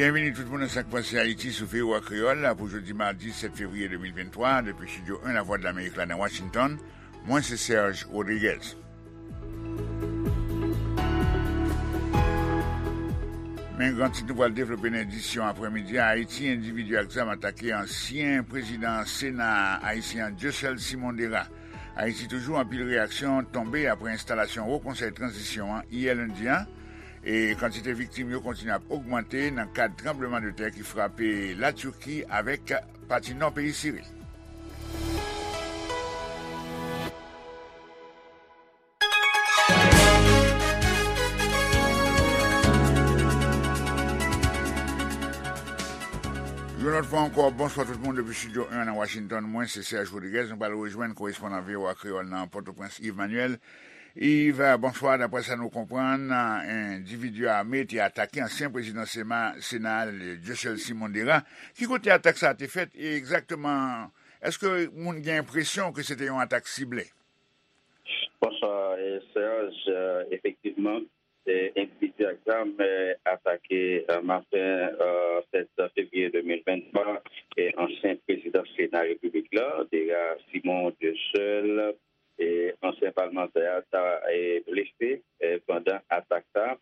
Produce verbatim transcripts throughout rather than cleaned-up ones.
Byenvini tout moun nan Sa k Pase Ayiti sou V O A Kreyòl pou jodi madi sèt fevriye de mil venntwa, depi estidyo en Lavwadlamerik la nan Washington. Mwen se Serge Rodriguez. Men gran tit nou pral devlope nan edisyon aprèmidi a: Ayiti, endividi ak zam atake ansyen prezidan Sena ayisyen an, Dieuseul Simon Dera. Ayiti toujou, anpil reyaksyon tonbe apre enstalasyon Wo Konsèy Tranzisyon an yè lendi a. E kantite viktim yo kontinye ap ogmante nan kad tranblemanntè ki frape Latiki avèk pati nò peyi Siri. Yon lòt fwa ankò, bonswa tout moun depi estidyo en nan Washington. Mwen se Serge Rodriguez. Nou pral rejwenn korespondan V O A Kreyòl nan Pòtoprens, Yves Manuel. Yves, bonswa. Daprè sa nou konprann, endividi ame te atake ansyen prezidan Sena, Sena, Dieuseul Simon Dera. Ki kote atak sa a te fèt e egzakteman, èske moun gen enpresyon ke se te yon atak sible? Bonswa, eh, Serge. Eh, efektivman, eh, endividi ak zam, eh, atake, eh, maten, eh, sèt fevriye de mil venntwa, eh, ansyen prezidan Sena Repiblik la, Dera Simon Dieuseul, eh, ansyen palmantè a, ta, eh, blese, eh, pandan atak sa.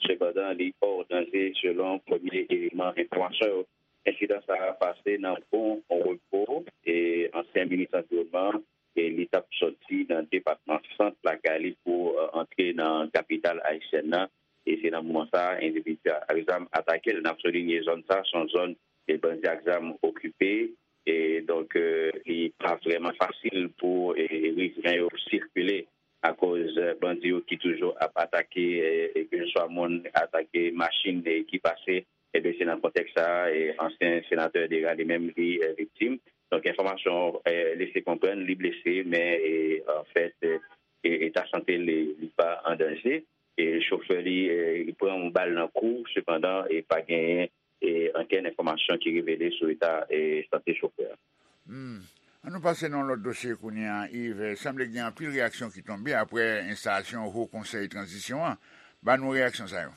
Sepandan, li hors danger, selon premye eleman enfòmasyon yo. Ensidan sa a pase nan Bon Repos, e ansyen minis anviwònman, e li t ap sòti nan depatman Sant lakay li pou, eh, antre nan kapital ayisyèn nan. E se nan moman sa a, endividi ak zam atake l. N ap soulinye zòn sa a, se yon zòn ke bandi ak zam okipe. E donk, eh, li pa vrèman fasil pou, eh, rivren yo sikile akoz, eh, bandi yo ki toujou ap atake, eh, eh, keseswa moun, atake machin, eh, ki pase. Ebyen, se nan kontèks sa a, eh, ansyen senatè Dera li menm li, eh, viktim. Donk, enfòmasyon, eh, lese konprann li blese, men, eh, anfèt, eh, eh, eta sante li, li pa an danje. E chofè li, eh, li pran yon bal nan kou, sepandan, eh, pa genyen, eh, okenn enfòmasyon ki revele sou eta, eh, sante chofè a. Hmm. Ann nou pase nan yon lòt dosye kounye a, Yves. Sanble gen anpil reyaksyon ki tonbe apre enstalasyon Wo Konsèy Tranzisyon an. Ban nou reyaksyon sa yo.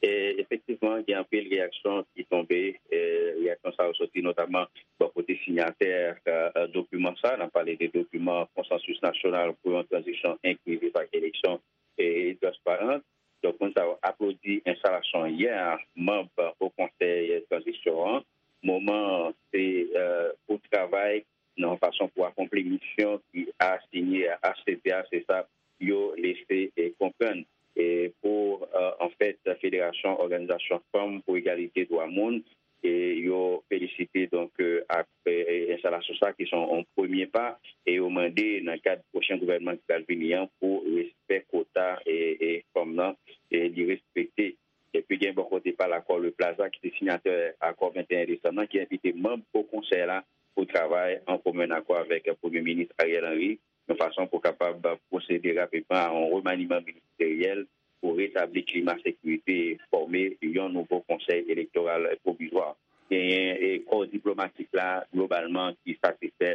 E, efektivman, gen anpil reyaksyon ki tonbe. E, reyaksyon sa yo soti notaman bò kote sinyatè, e, e, dokiman sa. N ap pale de dokiman Konsansis Nasyonal pou yon Tranzisyon Enklizif ak Eleksyon, e, Transparan. Donk, moun sa yo aplodi enstalasyon yè a manm Wo Konsèy Tranzisyon an. Moman an, se, e, pou travay nan yon fason pou akonpli misyon ki asinye a H C T a, se sa yo lese, e, konprann. E pou, e, anfèt, Federasyon Òganizasyon Fanm pou Egalite Dwa Moun, e yo felisite, donk, e, ak, e, e, enstalasyon sa ki se yon, yon premye pa, e yo mande nan kad pwochen gouvènman ki pral vini an pou respè kwota, e, e, fanm nan, e li respekte. Epi gen bò kote pa l Accor Le Plaza ki te sinyatè akò venteyen desanm nan, ki envite manm Wo Konsèy la pou travay an komen akò avèk Premye Minis Ariel Henry, yon fason pou kapab pwosede rapidman a yon remaniman ministeryèl pou retabli klima sekirite e fòme yon nouvo konsèy elektoral pwovizwa. Genyen, e, kò diplomatik la globalman ki satisfè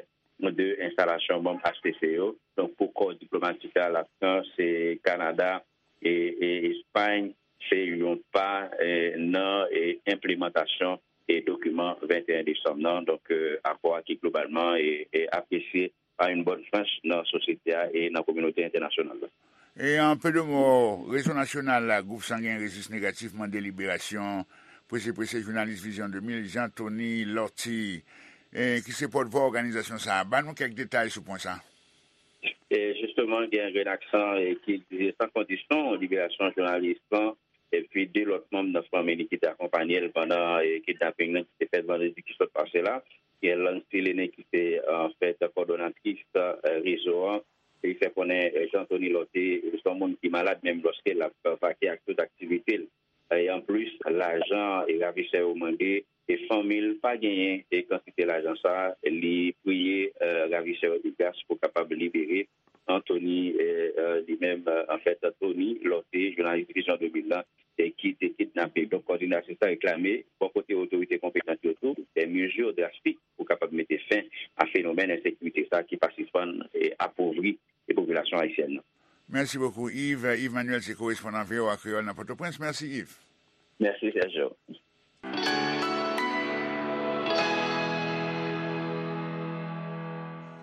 de enstalasyon manm H C C yo. Donk, pou kò diplomatik la, Lafrans, e, Kanada, e, e Espay, se yon pa, e, nan, e, enplimantasyon, e, dokiman venteyen desanm nan. Donk, e, akò a ki globalman, e, e, apresye pa yon bòn franch nan sosyete a e nan kominote entènasyonal la. E an peu de mots, Rezo Nasyonal Gwoup Sangen Rezis Negatif mande liberasyon prese prese jounalis Vizyon de mil, Jean Thony Lortie, e, ki se pòtvwa òganizasyon sa a. Ban nou kèk detay sou pwen sa a. E jisteman, gen Renaxan, e, ki egzije san kondisyon liberasyon jounalis lan, epi de lòt manm nan fanmi li ki te akonpanye l pandan, e, kidnaping nan ki te fèt vandredi ki sot pase la. Gen Lancy Lene ki se, anfèt, kòdonatris, e, rezo an. Li fè konnen, e, Jean Thony Lortie, e, se yon moun ki malad menm lòske l ap, e, vake ak tout aktivite l. E anplis, lajan e ravisè yo mande, e fanmi l pa genyen e kantite lajan sa a, li priye, e, ravisè yo de gras pou kapab libere Anthony, e, e, li menm, e, anfèt, Thony Lortie, jounalis Vizyon de mil lan, e ki te kidnape. Donk, kòdinasyon sa reklame, bò kote otorite konpetan yo tou, des mesures drastiques pou kapab mete fen a fenomèn ensekirite sa ki pa sispann, e, apovri, e, popilasyon ayisyèn nan. Mèsi bokou, Yves. Yves Manuel se korespondan V O A Kreyòl nan Pòtoprens. Mèsi, Yves. Mèsi, Sergio.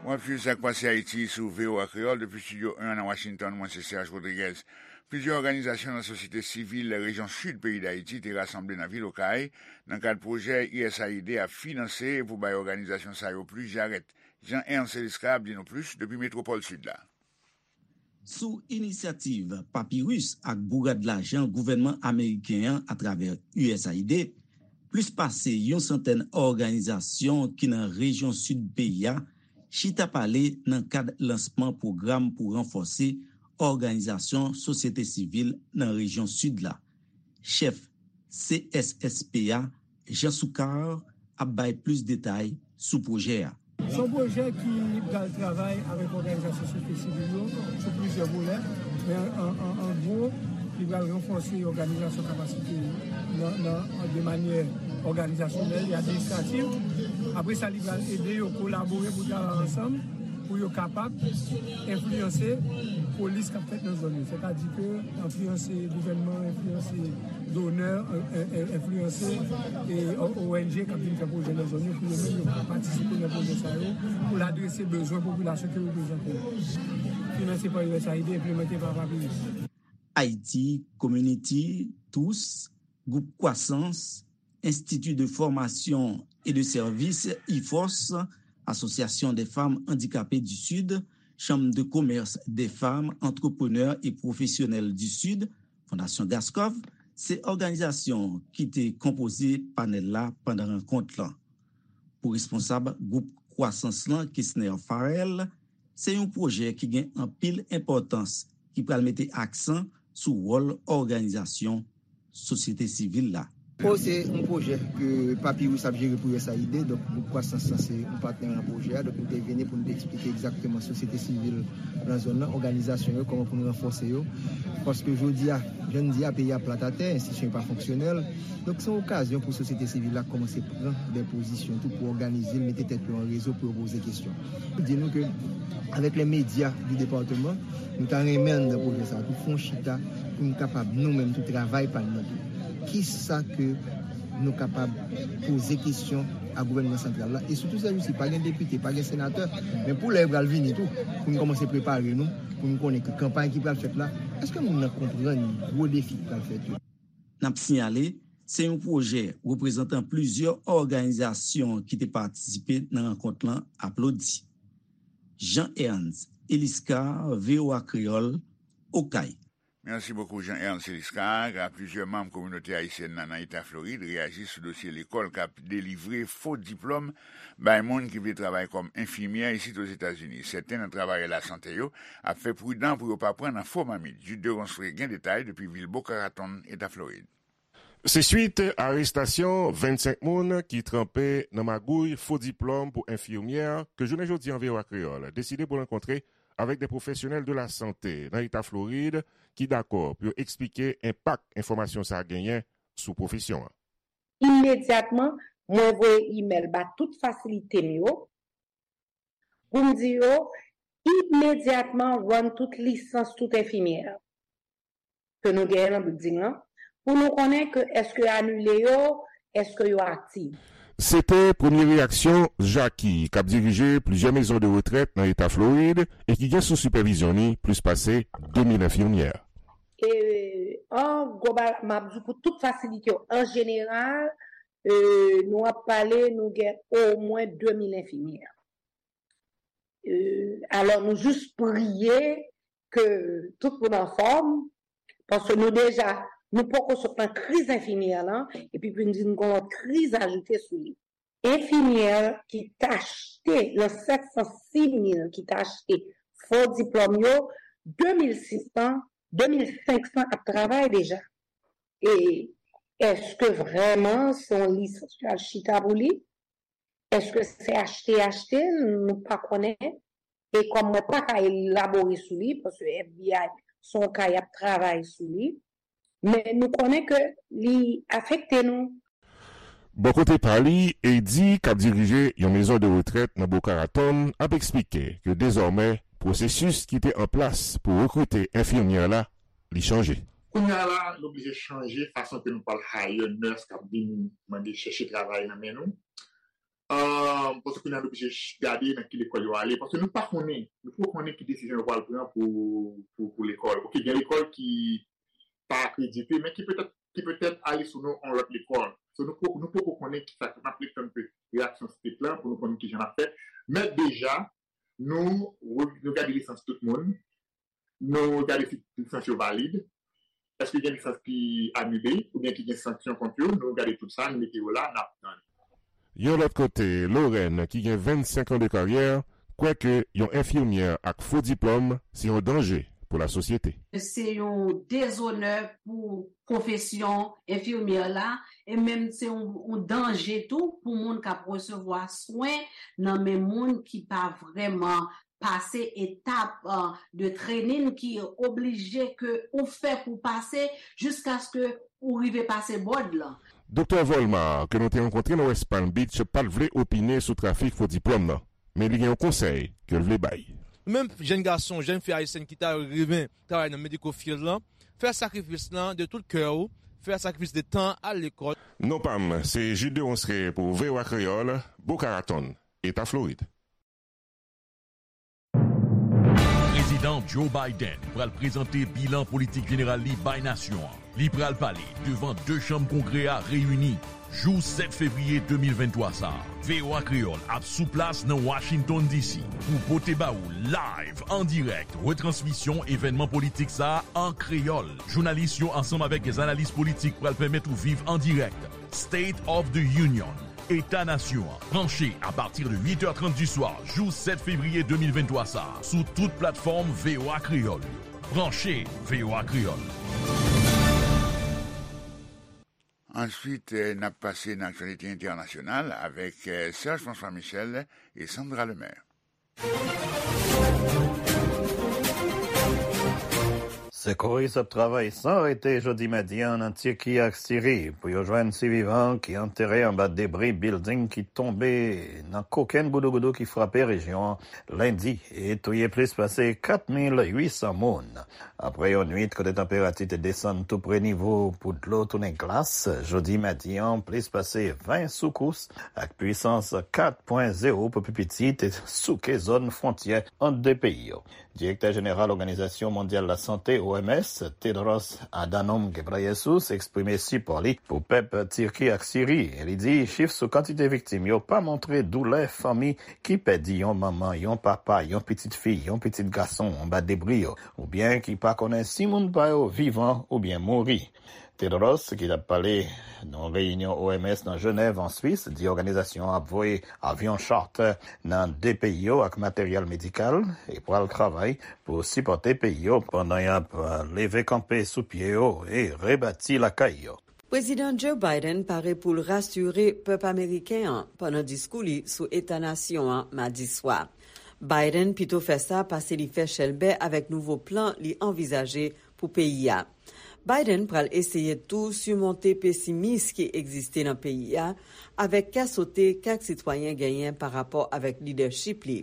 W ap swiv Sa k Pase Ayiti sou V O A Kreyòl depi Estidyo en nan Washington. Mwen se Serge Rodriguez. Plizyè òganizasyon nan sosyete sivil rejyon sid peyi Dayiti te rasanble nan vil Okay nan kad pwojè U S A I D ap finanse pou bay òganizasyon sa yo plis jarèt. Jean Ernst Eliscar ap di nou plis depi metwopòl sid la. Sou inisyativ Papyrus ak bourad lajan gouvènman ameriken an atravè U S A I D, plis pase yon santèn òganizasyon ki nan rejyon sid peyi a chita pale nan kad lansman pwogram pou ranfòse òganizasyon sosyete sivil nan rejyon sid la. Chèf C S S P a, Jean Soukar, ap bay plis detay sou pwojè a. Se yon pwojè ki pral travay avèk òganizasyon sosyete sivil yo sou plizyè volè, men an, an, an gwo, li pral ranfòse òganizasyon kapasite nan, nan, de manyè òganizasyonèl e administrativ. Apre sa, li pral ede yo kolabore pou travay ansanm pou yo kapab enfliyanse polis k ap fèt nan zòn yo. Sètadi ke enfliyanse gouvènman, enfliyanse donè, e, e, e, enfliyanse, e, O N G k ap vin fè pwojè nan zòn yo pou yo menm yo patisipe nan pwojè sa yo, pou l adrese bezwen popilasyon ke yo bezwen pou yo. Finanse pa U S A I D, enplimante pa Papyrus. Haiti Community, tous, Gwoup Kwasans, Institut de Formation et de Service, IFORS, Association des Femmes Handicapées du Sud, Chambre de Commerce des Femmes Entrepreneurs et Professionnelles du Sud, Fondasyon Gaskov, se òganizasyon ki te konpoze panèl la pandan rankont lan. Pou responsab gwoup Kwasans lan, Kesner Farrell, se yon pwojè ki gen anpil enpòtans ki pral mete aksan sou wòl òganizasyon sosyete sivil la. O, se yon pwojè ke Papyrus ap jere pou U S A I D, donk gwoup Kwasans lan se yon patnè nan pwojè a, donk nou te vini pou nou te eksplike egzakteman sosyete sivil nan zòn nan, òganizasyon yo, kòman pou nou ranfòse yo. Paske jodi a, jan n di a, peyi a plat atè, enstitisyon yo pa fonksyonèl. Donk, se yon okazyon pou sosyete sivil la kòmanse pran de pozisyon tou pou òganize l, mete tèt yo an rezo pou yo poze kesyon. Di nou ke, avèk les médias du département, nou ta renmen anndan pwojè sa a tou, fè yon chita pou nou kapab, nou menm tou, travay pa n nan tou. Kisa ke nou kapab poze kesyon a gouvènman santral la? E sitou, sèjousi, pa gen depite, pa gen senatè, men pou lè yo pral vini tou, pou nou kòmanse prepare nou, pou nou konnen ke kanpay ki pral fèt la, èske moun nan konprann gwo defi ki pral fèt yo? N ap siyale, se yon pwojè reprezantan plizyè òganizasyon ki te patisipe nan rankont lan aplodi. Jean Ernst Eliscar, V O A Kreyòl, Okay. Mèsi bokou, Jean Ernst Eliscar. Plizyè manm kominote ayisyèn nan, nan eta Florid reyaji sou dosye lekòl k ap delivre fo diplòm bay moun ki vle travay kòm enfimyè isit Ozetazini. Sèten nan travayè lasante yo ap fè pridan pou yo pa pran nan fo mamit. Jude Deronceray gen detay depi vil Boca Raton, eta Florid. Se swit arestasyon vennsenk moun ki tranpe nan magouy fo diplòm pou enfimyè ke jounen jodi a V O A Kreyòl deside pou rankontre avèk de pwofesyonèl de lasante nan eta Florid ki dakò pou yo eksplike enpak enfòmasyon sa a genyen sou pwofesyon an. Imedyatman, mwen voye imèl ba tout fasilite m yo pou m di yo imedyatman rann tout lisans tout enfimyè ke nou genyen nan bilding lan, pou nou konnen ke èske yo anile yo, èske yo aktif. Se te premye reyaksyon Jackie, k ap dirije plizyè mezon de retrèt nan eta Florid e ki gen sou sipèvizyon li plis pase de mil enfimyè. E, an global, m ap di pou tout fasilite yo, an jeneral, e, nou ap pale, nou gen omwen de mil enfimyè. E, alò, nou jis priye ke tout moun anfòm, paske nou deja, nou poko sot nan kriz enfimyè lan, epi pou n di n gon lòt kriz ajoute sou li. Enfimyè ki t achte nan sèt san sis mil ki t achte fo diplòm yo, de mil sis san, de mil senk san ap travay deja. E èske vrèman se yon lisans yo al chita pou li? Èske se achte, achte l? Nou pa konnen. E kòm mwen pa ka elabore sou li, paske F B I se yon ka y ap travay sou li, men nou konnen ke li afekte nou. Bò kote pa li, Eddie, k ap dirije yon mezon de retrèt nan Boca Raton, ap eksplike ke dezòmè, pwosesis ki te an plas pou rekrite enfimyè la, li chanje. Kounye a la, nou oblije chanje fason ke nou pral hire nurse k ap vin mande chèche travay nan men nou. Ahn, paske kounye a nou oblije ch- gade nan ki lekòl yo ale. Paske nou pa konnen, nou poko konnen ki desizyon yo pral pran pou, pou, pou lekòl. Ok, gen lekòl ki pa akredite, men ki petèt, ki petèt ale sou non yon lòt lekòl. So, nou poko, nou poko konnen ki sa k ap ret tann ke reyaksyon state lan pou nou konn ki jan n ap fè. Men deja, nou, nou gade lisans tout moun. Nou gade si lisans yo valid, èske gen lisans ki anile oubyen ki gen sanksyon kont yo, nou gade tout sa, nou mete yo la, n ap tann. Yon lòt kote, Lorraine, ki gen vennsenk an de karyè, kwè ke yon enfimyè ak fo diplòm se yon danje pou lasosyete. Se yon dezonè pou pwofesyon enfimyè la, e menm se yon, yon danje tou pou moun k ap resevwa swen nan men moun ki pa vrèman pase etap, uh, de training ki oblije ke ou fè pou pase jiskaske ou rive pase bòd lan. Doktè Volmar, ke nou te rankontre nan West Palm Beach, pa t vle opine sou trafik fo diplòm nan, men li gen yon konsèy ke l vle bay. Ou menm jèn gason, jèn fi ayisyèn ki ta renmen travay nan medical field lan, fè sakrifis lan de tout kè w, fè sakrifis de tan, al lekòl. Non pa m, se Jude de Ronceray pou V O A Kreyòl, Boca Raton, Eta Florid. Prezidan Joe Biden pral prezante bilan politik jeneral li bay nasyon an. Li pral pale devan de chanm Kongrè a reyini jou sèt fevriye de mil venntwa sa a. V O A Kreyòl ap sou plas nan Washington D C pou pote ba ou live, an dirèk, retransmisyon evènman politik sa a an kreyòl. Jounalis yo ansanm avèk dè analis politik pral pèmèt ou viv an dirèk State of the Union, Eta Nasyon an. Branche apati de uit è trant di swa, jou sèt fevriye de mil venntwa sa a, sou tout platfòm V O A Kreyòl yo. Branche V O A Kreyòl. Answit, eh, n ap pase nan aktyalite entènasyonal avèk, eh, Serge François Michel e Sandra Lemaire. Sekouris ap travay san rete jodi madi an nan Tiki ak Siri pou yo jwenn sivivan ki antere anba debri bilding ki tonbe nan kokenn goudougoudou ki frape rejyon an lendi e touye plis pase kat mil uit san moun. Apre yon nwit kote tanperati te desann tou pre nivo pou dlo tounen glas, jodi madi an, plis pase ven soukous ak pwisans kat pwen zewo pou pi piti te souke zòn fwontyè ant de peyi yo. Direktè jeneral Òganizasyon Mondyal Lasante, O M S, Tedros Adhanom Ghebreyesus, eksprime sipò li pou pèp Tiki ak Siri. Li di chif sou kantite viktim yo pa montre doulè fanmi ki pèdi yon manman, yon papa, yon pitit fi, yon pitit gason anba debri yo, oubyen ki pa konnen si moun pa yo vivan oubyen mouri. Tedros, ki t ap pale nan yon reyinyon O M S nan Jenèv, an Swis, di òganizasyon an ap voye avyon charter nan de peyi yo ak materyèl medikal e pral travay pou sipòte peyi yo pandan y ap, eh, leve kanpe sou pye yo e rebati lakay yo. Prezidan Joe Biden pare pou l rasire pèp ameriken an pandan diskou li sou eta nasyon an madi swa. Biden pito fè sa pase li fè chèlbè avèk nouvo plan li anvizaje pou peyi a. Biden pral eseye tou simonte pesimis ki egziste nan peyi a, avèk kè sote kèk sitwayen genyen pa rapò avèk lidèchip li.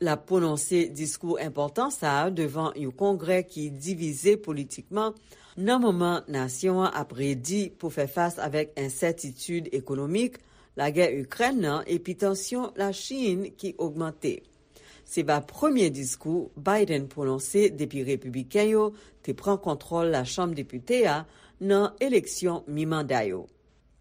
L ap pwononse diskou enpòtan sa a devan yon kongrè ki divize politikman, nan moman nasyon an ap redi pou fè fas avèk ensètitid ekonomik, lagè Ikrèn nan epi tansyon Lachin ki ogmante. Se va premye diskou Biden pwononse depi repibliken yo te pran kontwòl Lachanm Depite a nan eleksyon mi-manda yo.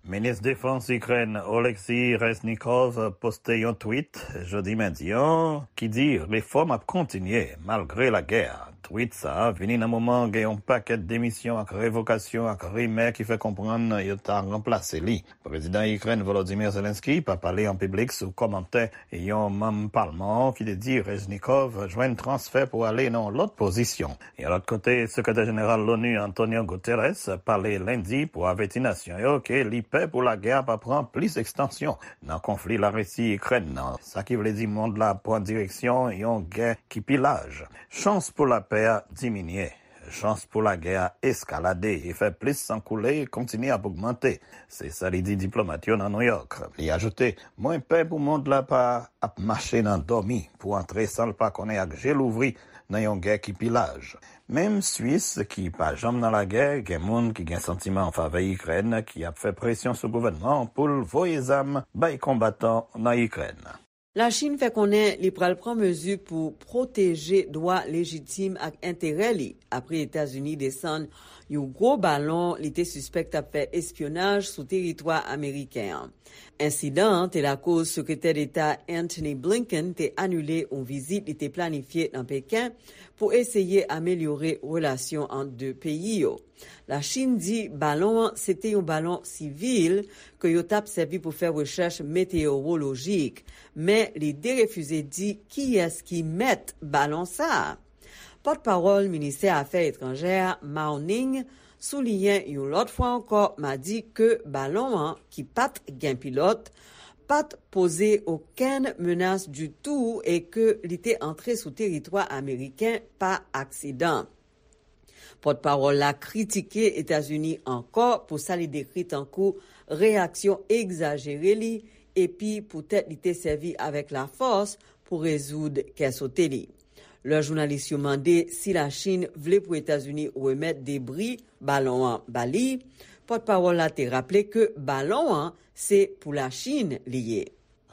Minis Defans Ikrèn Oleksiy Reznikov poste yon tweet jodi madi an ki di refòm ap kontinye malgre lagè a. Tweet sa a vini nan moman gen yon pakèt demisyon ak revokasyon ak rimè ki fè konprann yo ta ranplase li. Prezidan Ikrèn Volodymyr Zelensky pa pale an piblik sou kòmantè yon manm palman an ki te di Reznikov jwenn transfè pou ale nan yon lòt pozisyon. Yon lòt kote, sekretè jeneral l'ONU Antonio Guterres pale lendi pou avèti nasyon yo ke li pè pou lagè a pa pran plis ekstansyon nan konfli Larisi-Ikrèn nan, sa ki vle di mond la ap pran direksyon yon gè ki pi laj. Chans pou lapè a diminye. Chans pou lagè a eskalade e fè plis san koule kontinye ap ogmante. Se sa li di diplomat yo nan Nouyòk. Li ajoute, mwen pè pou mond la pa ap mache nan dòmi pou antre san l pa konnen ak je louvri nan yon gè ki pi laj. Menm Swis, ki pa janm nan lagè, gen moun ki gen santiman an favè Ikrèn ki ap fè presyon sou gouvènman an pou l voye zam bay konbatan nan Ikrèn. Lachin fè konnen li pral pran mezi pou pwoteje dwa lejitim ak enterè li apre Etazini desann yon gwo balon li te sispèk t ap fè espyonaj sou teritwa ameriken an. Ensidan an te lakoz Sekretè Deta Antony Blinken te anile yon vizit li te planifye nan Peken pou eseye amelyore relasyon ant de peyi yo. Lachin di balon an se te yon balon sivil ke yo t ap sèvi pou fè rechèch meteyowolojik, men li derefize di kiyès ki mèt balon sa a. Pòtpawòl ministè afè etranjè a, Mao Ning, souliyen yon lòt fwa ankò madi ke balon an, ki pa t gen pilòt, pa t poze okenn menas ditou e ke li te antre sou teritwa ameriken pa aksidan. Pòtpawòl la kritike Etazini ankò pou sa li dekri tankou reyaksyon egzajere li epi poutèt li te sèvi avèk lafòs pou rezoud kè sote li. Lè jounalis yo mande si Lachin vle pou Etazini remèt debri balon an ba li, pòtpawòl la te raple ke balon an se pou Lachin li ye.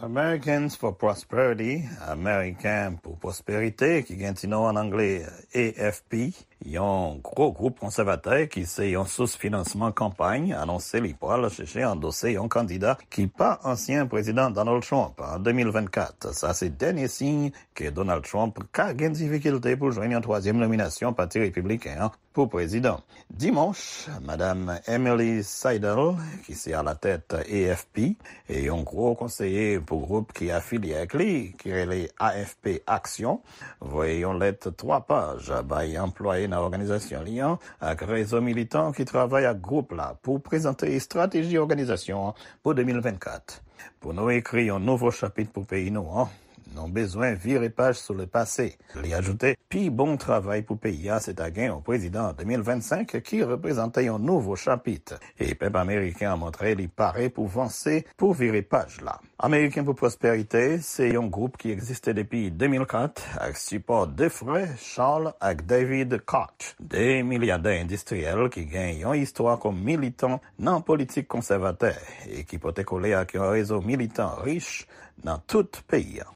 Americans for Prosperity, Ameriken pou Pwosperite, ki gen ti non an angle A F P, yon gwo gwoup konsèvatè ki se yon sous finansman kanpay, anonse li pral chèche andose yon kandida ki pa ansyen Prezidan Donald Trump an de mil vennkat. Sa se dènye siy ke Donald Trump ka gen difikilte pou jwenn yon twazyèm nominasyon Pati Repibliken an pou prezidan. Dimanch, Madam Emily Seidel, ki se alatèt A F P, e yon gwo konseye pou gwoup ki afilye ak li, ki rele A F P Aksyon, voye yon lèt twa paj bay anplwaye nan òganizasyon li an ak rezo militan ki travay ak gwoup la pou prezante estrateji òganizasyon an pou de mil vennkat. Pou nou ekri yon nouvo chapit pou peyi nou an, nou bezwen vire paj sou lepase. Li ajoute, pi bon travay pou peyi a se ta gen yon prezidan an de mil vennsenk ki reprezante yon nouvo chapit. E pèp ameriken an montre li pare pou vanse, pou vire paj la. Ameriken pou Pwosperite se yon gwoup ki egziste depi de mil kat ak sipò de frè Charles ak David Koch, de milyadè endistriyèl ki gen yon istwa kòm militan nan politik konsèvatè e ki pote kole ak yon rezo militan rich nan tout peyi a.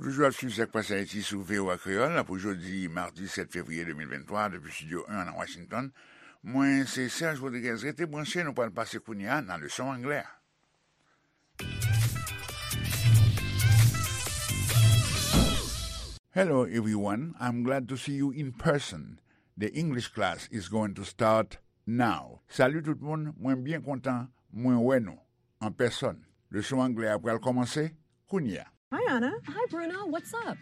Ou toujou ap swiv Sa k Pase Ayiti sou V O A Kreyòl pou jodi madi sèt fevriye de mil venntwa depi Estidyo en nan Washington. Mwen se Serge Rodriguez. Rete branche, nou pral pase kounye a nan leson anglè a. Hello everyone, I'm glad to see you in person. The English class is going to start now. Salut tout moun, mwen byen kontan mwen wè nou an pèsòn. Leson anglè a pral kòmanse kounye a. Hi, Anna. Hi, Bruno. What's up?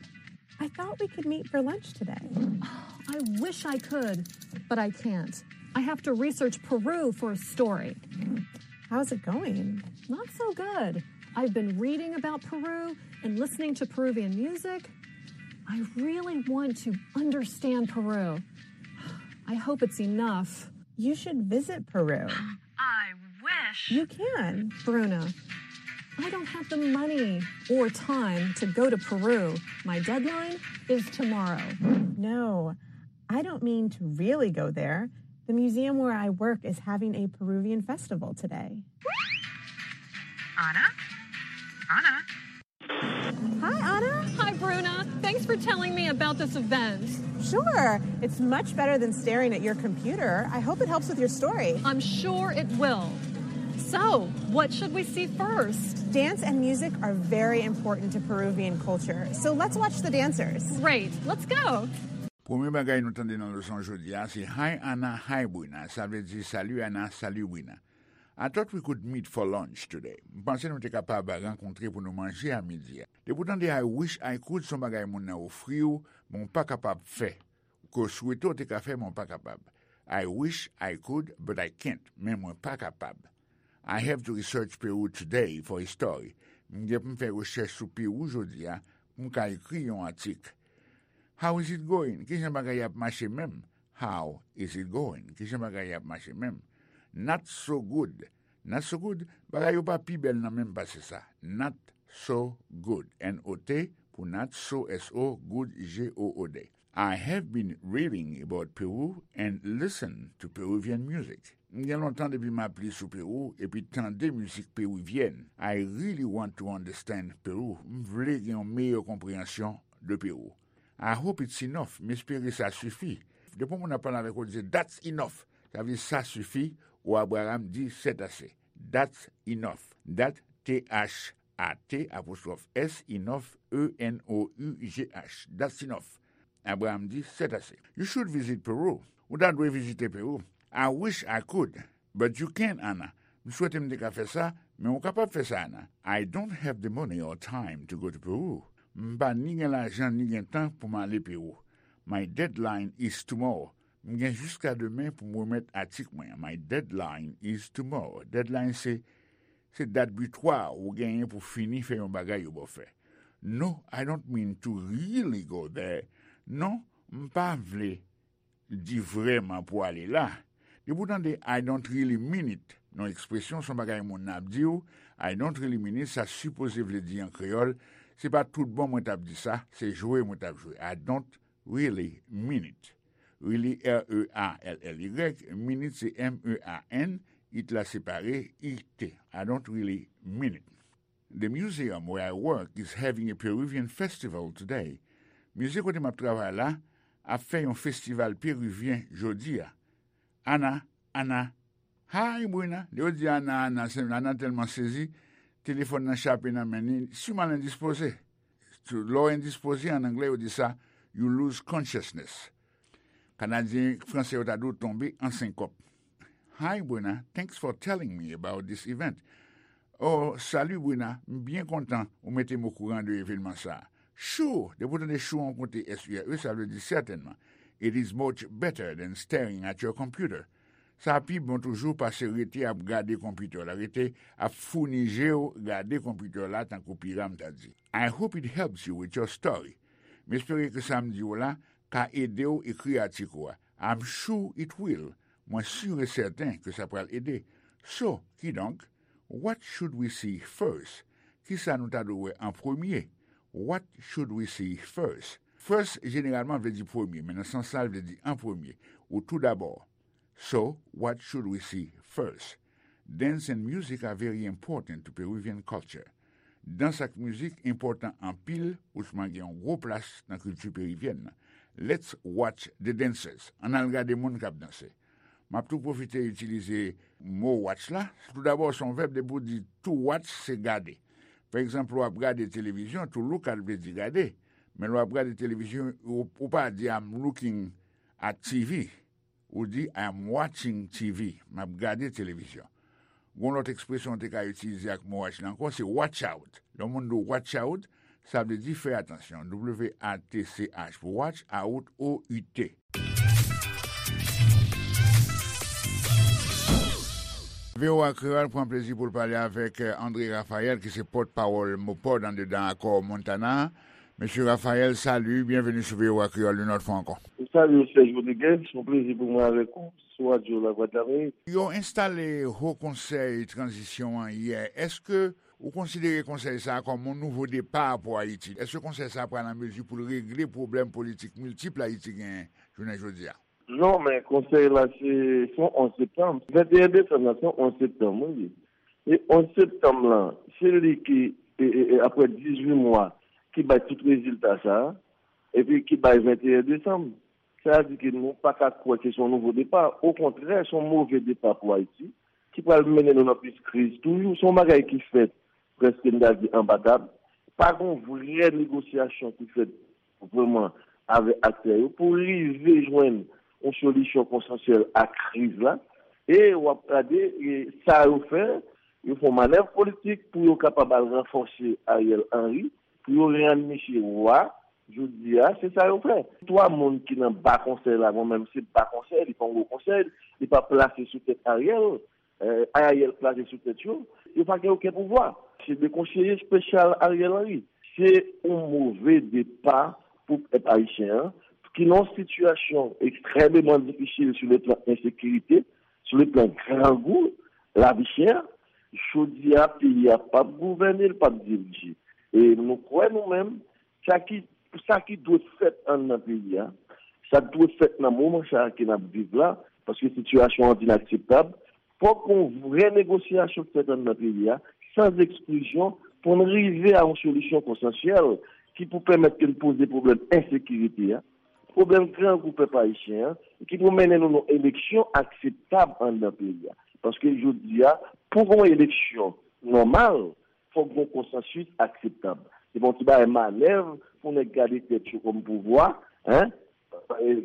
I thought we could meet for lunch today. I wish I could, but I can't. I have to research Peru for a story. How's it going? Not so good. I've been reading about Peru and listening to Peruvian music. I really want to understand Peru. I hope it's enough. You should visit Peru. I wish. You can. Bruno, I don't have the money or time to go to Peru. My deadline is tomorrow. No, I don't mean to really go there. The museum where I work is having a Peruvian festival today. Anna? Anna? Hi, Anna. Hi, Bruna. Thanks for telling me about this event. Sure. It's much better than staring at your computer. I hope it helps with your story. I'm sure it will. So, what should we see first? Dance and music are very important to Peruvian culture, so let's watch the dancers. Great. Let's go. Premye bagay nou tande nan leson jodi a se Hi Anna, Hi Bruna. Sa vle di Salut Anna, Salut Bruna. I thought we could meet for lunch today. M panse nou te kapab rankontre pou nou manje a midi a. Depi w tande I wish I could, se yon bagay moun nan ofri w, men w pa kapab fè. Ke w swete w te ka fè, men w pa kapab. I wish I could, but I can't. Men mwen pa kapab. I have to research Peru today for a story. M gen pou m fè rechèch sou Pewou jodi a pou m ka ekri yon atik. How is it going? Kijan bagay ap mache menm? How is it going? Kijan bagay yo ap mache menm? Not so good. Not so good, bagay yo pa pi bèl nan menm pase sa. Not so good. N O T pou not, so, S O, good, G O O D. I have been reading about Peru and listen to Peruvian music. M gen lontan depi m ap li sou Pewou epi tande mizik perivyèn. I really want to understand Peru. M vle gen yon meyè konpreyansyon de Pewou. I hope it's enough. M espere sa sifi. Depi yon moun ap pale avèk ou, di, "That's enough." Sa vle di sa sifi, ou Abraham di, "C'est assez." That's enough. That, T H A T, apostwòf S, enough, E N O U G H. That's enough. Abraham di, "C'est assez." You should visit Peru. Ou ta dwe vizite Pewou. I wish I could, but you can't, Anna. M swete m te ka fè sa, men ou kapab fè sa, Anna. I don't have the money or time to go to Peru. M pa ni gen lajan ni gen tan pou m ale Pewou. My deadline is tomorrow. M gen jiska demen pou m remèt atik mwen an. My deadline is tomorrow. Deadline se, se dat bitwa ou genyen pou fini fè yon bagay yo ba w fè. No, I don't mean to really go there. Non, m pa vle di vrèman pou ale la. Depi w tande I don't really mean it nan yon ekspresyon, se yon bagay moun nan ap di w, I don't really mean it, sa sipoze vle di an kreyòl, se pa tout bon mwen t ap di sa, se jwe mwen t ap jwe. I don't really mean it. Really, R E A L L Y, mean it se M E A N, it la separe, I T. I don't really mean it. The museum where I work is having a Peruvian festival today. Mize kote m ap travay la ap fè yon festival perivyen jodi a. Ana, Ana, hi, Bruna. Lè yo di Ana, Ana, se, Ana tèlman sezi, telefòn nan chape nan men li, siman l endispoze. Lè w endispoze, an anglè, yo di sa, you lose consciousness. Kanadyen, Fransè yo ta di w tonbe an senkòp. Hi, Bruna. Thanks for telling me about this event. Oh, salut, Bruna. M byen kontan ou mete m okouran de evènman sa a. Sure, depi w tande sure an konte S U R E, sa vle di sètènman. It is much better than staring at your computer. Sa pi bon toujou pase rete ap gade konpitè w la, rete ap founi je w gade konpitè w la, tankou Piram ta di. I hope it helps you with your story. M espere ke sa m di w la ka ede w ekri atik ou a. I'm sure it will. Mwen si e sèten ke sa pral ede. So, kidonk, what should we see first? Kisa nou ta dwe wè an premye? What should we see first? First, jeneralman, vle di premye, men nan sans la, l vle di an premye, ou tou dabò. So, what should we see first? Dance and music are very important to Peruvian culture. Dans ak mizik enpòtan anpil, ousman gen yon gwo plas nan kilti perivyèn nan. Let's watch the dancers. Ann al gade moun k ap danse. M ap tou pwofite itilize mo watch la. Toudabò, se yon vèb, depi w di to watch, se gade. Pa egzanp, lè w ap gade televizyon, to look at vle di gade. Men lè w ap gade televizyon, ou, ou pa di I'm looking at T V. Ou di I'm watching T V. M ap gade televizyon. Gon lòt ekspresyon w te ka itilize ak mo watch la ankò, se watch out. Lè yon moun di w watch out, sa vle di fè atansyon. W A T C H pou watch, out, O U T. V O A Kreyòl pran plezi pou l pale avèk, eh, André Raphaël, ki se pòtpawòl MOPOD anndedan akò Montana a. Mesye Raphaël, salut, byenveni sou V O A Kreyòl yon lòt fwa ankò. Salut, Serge Rodriguez, se yon plezi pou mwen avèk ou sou radyo Lavwadlamerik. Yo enstale Ho Konsèy Tranzisyon an yè. Èske ou konsidere konsèy sa a kòm yon nouvo depa pou Ayiti? Èske konsèy sa a pral an mezi pou l regle pwoblèm politik miltip Ayiti genyen jounen jodi a? Non, men konsèy la se, se yon onz septanm. Venteyen desanm la, se yon onz septanm, wi. E onz septanm lan, se li ki, e, e, e, apre dizuit mwa, ki bay tout rezilta sa a, epi ki bay venteyen desanm. Sa vle di ke nou pa ka kwè ke se yon nouvo depa. Okontrè, se yon move depa pou Ayiti, ki pral mennen nou nan plis kriz toujou. Se yon bagay ki fèt prèske, m ta di, anba tab. Pa gen yon vrè negosyasyon ki fèt vrèman avèk aktè yo pou rive jwenn yon solisyon konsansyèl a kriz la. E w ap gade, e, sa yo fè, yo fè yon manèv politik pou yo kapab al ranfòse Ariel Henry, pou yo rann misye wa. Jodi a, se sa yo fè. Twa moun ki nan ba konsèy la, mwen menm se ba konsèy, li pa yon gwo konsèy, li pa plase sou tèt Ariel, eh, Ariel plase sou tèt yo, yo pa gen okenn pouvwa. Se de konseye espesyal Ariel Henry. Se yon move depa pou pèp ayisyen an, Ki nan yon sitiyasyon ekstrèmeman difisil sou le plan ensekirite, sou le plan grangou, lavi chè, jodi a, peyi a p ap gouvène, l p ap dirije. E nou kwè nou menm, sa ki, sa ki dwe fèt anndan peyi a, sa k dwe fèt nan moman sa a ke n ap viv la, paske sitiyasyon an vin akseptab, fòk yon vrè negosyasyon fèt anndan peyi a, san eksklizyon, pou n rive a yon solisyon konsansyèl ki pou pèmèt ke n poze pwoblèm ensekirite a, pwoblèm grangou pèp ayisyen an, ki pou mennen nou nan eleksyon akseptab anndan peyi a. Paske jodi a, pou gen yon eleksyon nòmal, fòk gen yon konsansis akseptab. Se pa yon ti bagay manèv pou nèg gade tèt yo kòm pouvwa, en,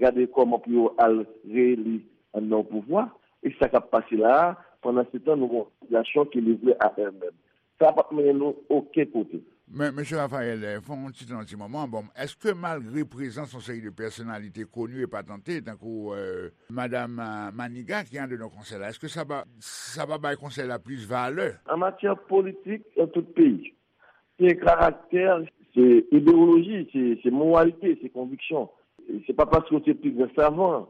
gade kòman pou yo al reyeli anndan yon pouvwa. E sa k ap pase la a, pandan se tan, nou gen yon sitiyasyon ki livre a èl menm. Sa p ap mennen nou okenn kote. Men, mesye Raphaël, eh, fè yon ti tan, yon ti moman. Bon, èske malgre prezans yon seri de pèsonalite koni e patante, tankou, eh, Madam, eh, Maniga ki andedan konsèy la, èske sa pa, sa pa bay konsèy la plis valè? An matyè politik, nan tout peyi, se karaktè, se idewoloji, se, se moralite, se konviksyon. Se pa paske w se pi gran savan.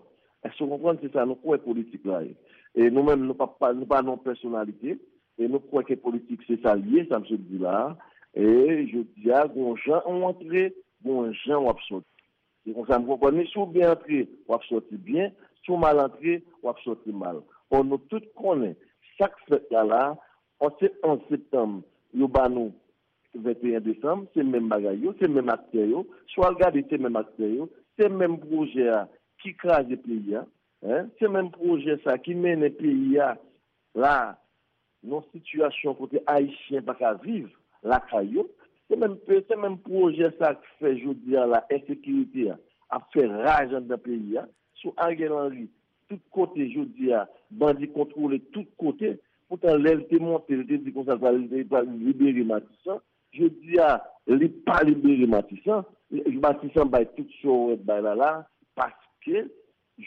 Èske w konprann? Se sa nou kwè politik la ye. E nou menm, nou pa, pa, nou pa nan pèsonalite. E nou kwè ke politik se sa l ye, sa m sot di la a. E jodi a, gon jan w antre, gon jan w ap sòti. Se konsa m konprann li. Si w byen antre, w ap sòti byen. Si w mal antre, w ap sòti mal. Ò, nou tout konnen sa k fèt la la a, se onz septanm, yo ba nou venteyen desanm, se menm bagay yo, se menm aktè yo. Si w al gade, se menm aktè yo, se menm pwojè a ki kraze peyi a, en, se menm pwojè sa ki mennen peyi a la nan sitiyasyon kote Ayisyen pa ka viv lakay yo. Se menm, se menm pwojè sa k fè jodi a la, ensekirite a ap fè raj anndan peyi a. Sou Ariel Henry, tout kote jodi a, bandi kontwole tout kote. Poutan, lè l te monte, l te di konsa l pral, l pral libere Matisan. Jodi a, li pa libere Matisan. Matisan bay tout sa w wè bay la la, paske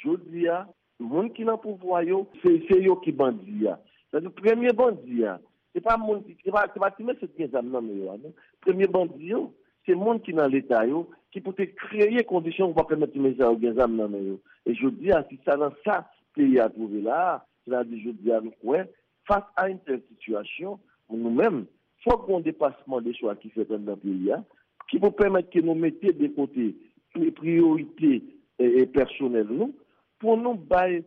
jodi a, moun ki nan pouvwa yo, se, se yo ki bandi a. Sètadi, premye bandi a, se pa moun ki, se pa, se pa ti mesye ki gen zam nan men yo a, non. Premye bandi yo, se moun ki nan Leta yo, ki pou te kreye kondisyon pou pa pèmèt ti mesye sa yo gen zam nan men yo. E jodi a, se sa nan sa peyi a twouve la a, sètadi jodi a, nou kwè, fas a yon tèl sitiyasyon, nou menm, fòk gen yon depasman de swa ki fèt anndan peyi a, ki pou pèmèt ke nou mete de kote pri-, priyorite, e, e, pèsonèl nou, pou nou bay,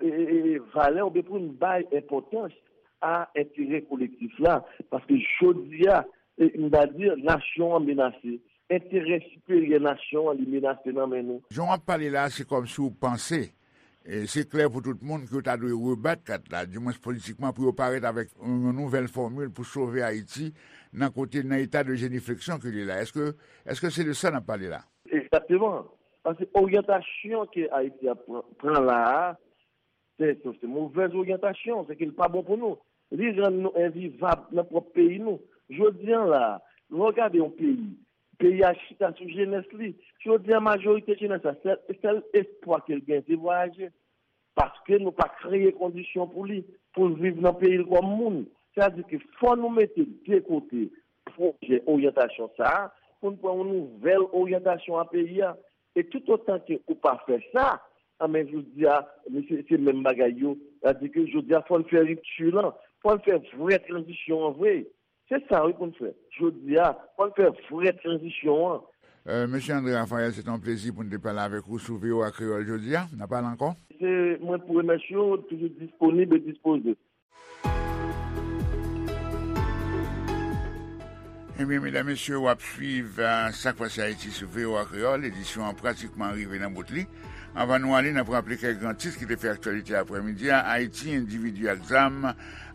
e, e, e, valè oubyen pou nou bay enpòtans a enterè kolektif la. Paske jodi a, e, m ta di, nasyon an menase. Enterè siperyè nasyon an, li menase nan men nou. Jan w ap pale la, se kòmsi w panse, e se klè pou tout moun ke w ta dwe rebat kat la, dimwens politikman, pou yo parèt avèk yon nouvèl fòmil pou sove Ayiti nan kote, nan eta de jenifleksyon ke li la. Èske, èske se de sa n ap pale la? Egzakteman. Paske oryantasyon ke Ayiti ap pran, pran la a, se, se, se movèz oryantasyon, se ke l pa bon pou nou. Li rann nou envivab nan pwòp peyi nou. Jodi a la, lè w gade yon peyi, peyi a chita sou jenès li. Jodi a, majorite jenès la, sèl, sèl espwa ke l gen, se vwayaje. Paske nou pa kreye kondisyon pou li, pou l viv nan peyi l kòm moun. Sètadi ke fò nou mete de kote pwojè oryantasyon sa a, pou n pran yon nouvèl oryantasyon a peyi a. E toutotan ke ou pa fè sa, anben, jodi a, se, se menm bagay yo. Sètadi ke jodi a, fò n fè ripti lan, fò n fè vrè tranzisyon an vre. Se sa, wi, pou n fè. Jodi a, fò n fè vrè tranzisyon an. Euh, Mesye André Raphaël, se te yon plezi pou n te pale avèk ou sou V O A Kreyòl jodi a. N a pale ankò. Se mwen pou remèsye w, toujou disponib e dispoze. Ebyen, medam, mesye, w ap swiv, euh, Sa k Pase Ayiti sou V O A Kreyòl. Edisyon an pratikman rive nan bout li. Anvan nou ale, n ap raple kèk gran tit ki te fè aktyalite aprèmidi a. Ayiti, endividi ak zam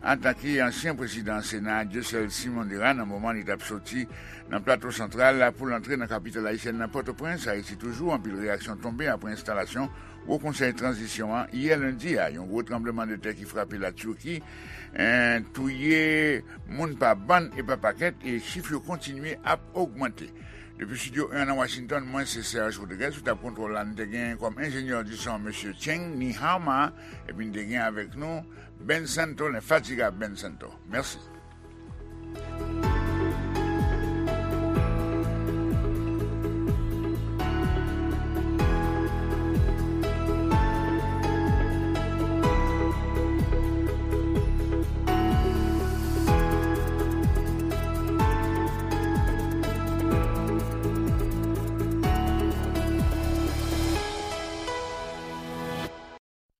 atake ansyen prezidan Sena a, Dieuseul Simon Dera, nan moman li t ap soti nan Plato Santral pou l antre nan kapital ayisyèn nan, Pòtoprens. Ayiti toujou, anpil reyaksyon tonbe apre enstalasyon Wo Konsèy Tranzisyon an yè lendi a. Yon gwo tranblemanntè ki frape Latiki, en, touye moun pa bann e pa pakèt, e chif yo kontinye ap ogmante. Depi Estidyo en nan Washington, mwen se Serge Rodriguez, sou tab kontwòl la, n te gen kòm enjenyè di son Mesye Cheng Nihama, epi n te gen avèk nou Ben Santo, lenfatigab Ben Santo. Mèsi.